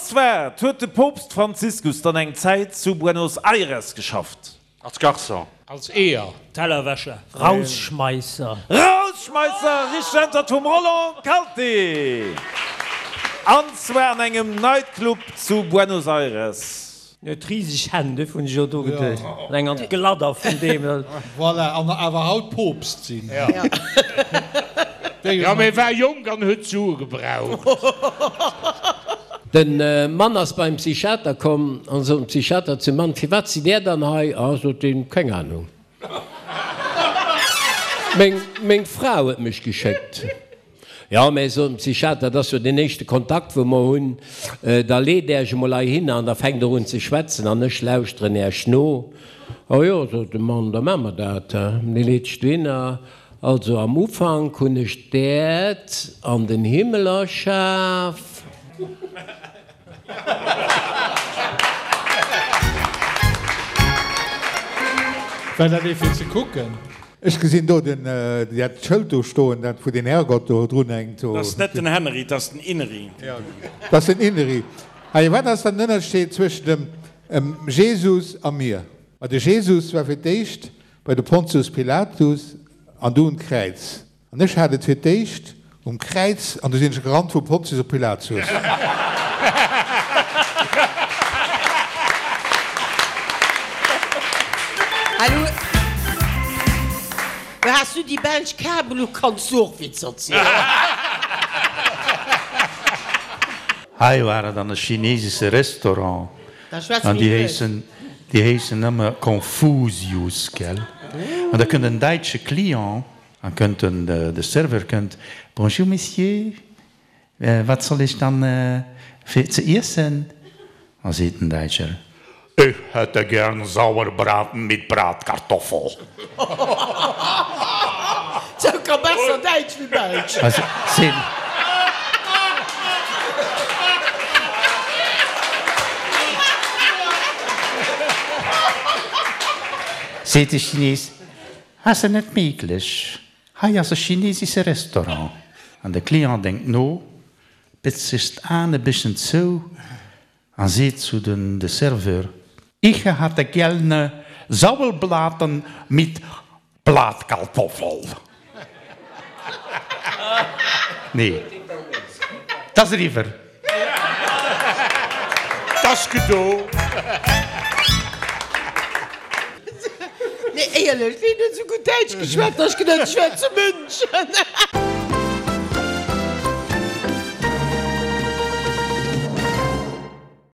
zwar huet de Poopst Franziskus dann eng Zäit zu Buenos Aires geschafft. Als Garçon. Als Eeër. Tellerwäscher. Rausschmeisser. Rausschmeisser, richteg Äntwert vum Roland Kalté. An zwar an engem Nightclub zu Buenos Aires. En huet riseg Hänn, duerfir hunn ech och do geduecht. An eng an d'Gladder vun deem. Voilà, an awer haut Poopst sinn. Jo, mee war jonk an huet Sue gebraucht. Den Mann ass beim Psychiater komm an sot dem Psychiater zum Mann, Firwat sidd Där dann hei? Ah, sot deen, keng Ahnung. Meng, meng Fra huet mech geschéckt. Jo, mä, sot den Psychiater, dat ass jo deen éischte Kontakt, wou mer hunn. Da leet Äech emol heihinner an da fänkt Der un ze schwätzen an ech lauschteren Äech no. Oh jo, sot de Mann, da maache mer dat. Dee leet sech dohinner. Also am Ufank hunn ech d'Äerd an den Himmel erschaf. War dat ee fir ze kucken? Ech gesinn do den, dat Schëld do stoen, dat wou den Herrgott do drun hänkt. Dat ass net den Henry, dat ass den Inri. Dat ass den Inri. Hei, wat ass dann den Ënnerscheed zwëschen dem Jesus a mir? Ma de Jesus war fir d'éischt bei de Pontius Pilatus an du un d'Kräiz. An ech hat et fir d'éischt um Kräiz an du sinn ech gerannt vum Pontius op Pilatus. Hallo, has du déi belsch Kabel u kanns du och Witzer zielen. Hei war et an e chinesesche Restaurant an déi héissen, déi héissen ëmmer Confusius, gell? An da kënnt en däitsche Client an kënnt den, de Serveur kënnt, Bonjour Monsieur, wat soll ech dann fir ze iessen? A seet den Däitscher, Ich hätte gern Sauerbraten mit Bratkartoffel. Sou ka besser Däitsch wéi Belsch. Seet de Chines, Ass et net méiglech, hei ass e chinesesche Restaurant. An de Client denkt no, bëtzt sech d'Aen e bësschen zou a seet zu den de Serveur, Ich hatte gerne Sauelblaten mit Blatkartoffel. Nee, 't ass eriwwer. 't ass gedo. Nee, éierlech, ween huet esou gutt Däitsch geschwat, dass ech geduet hunn, ech wär zu München.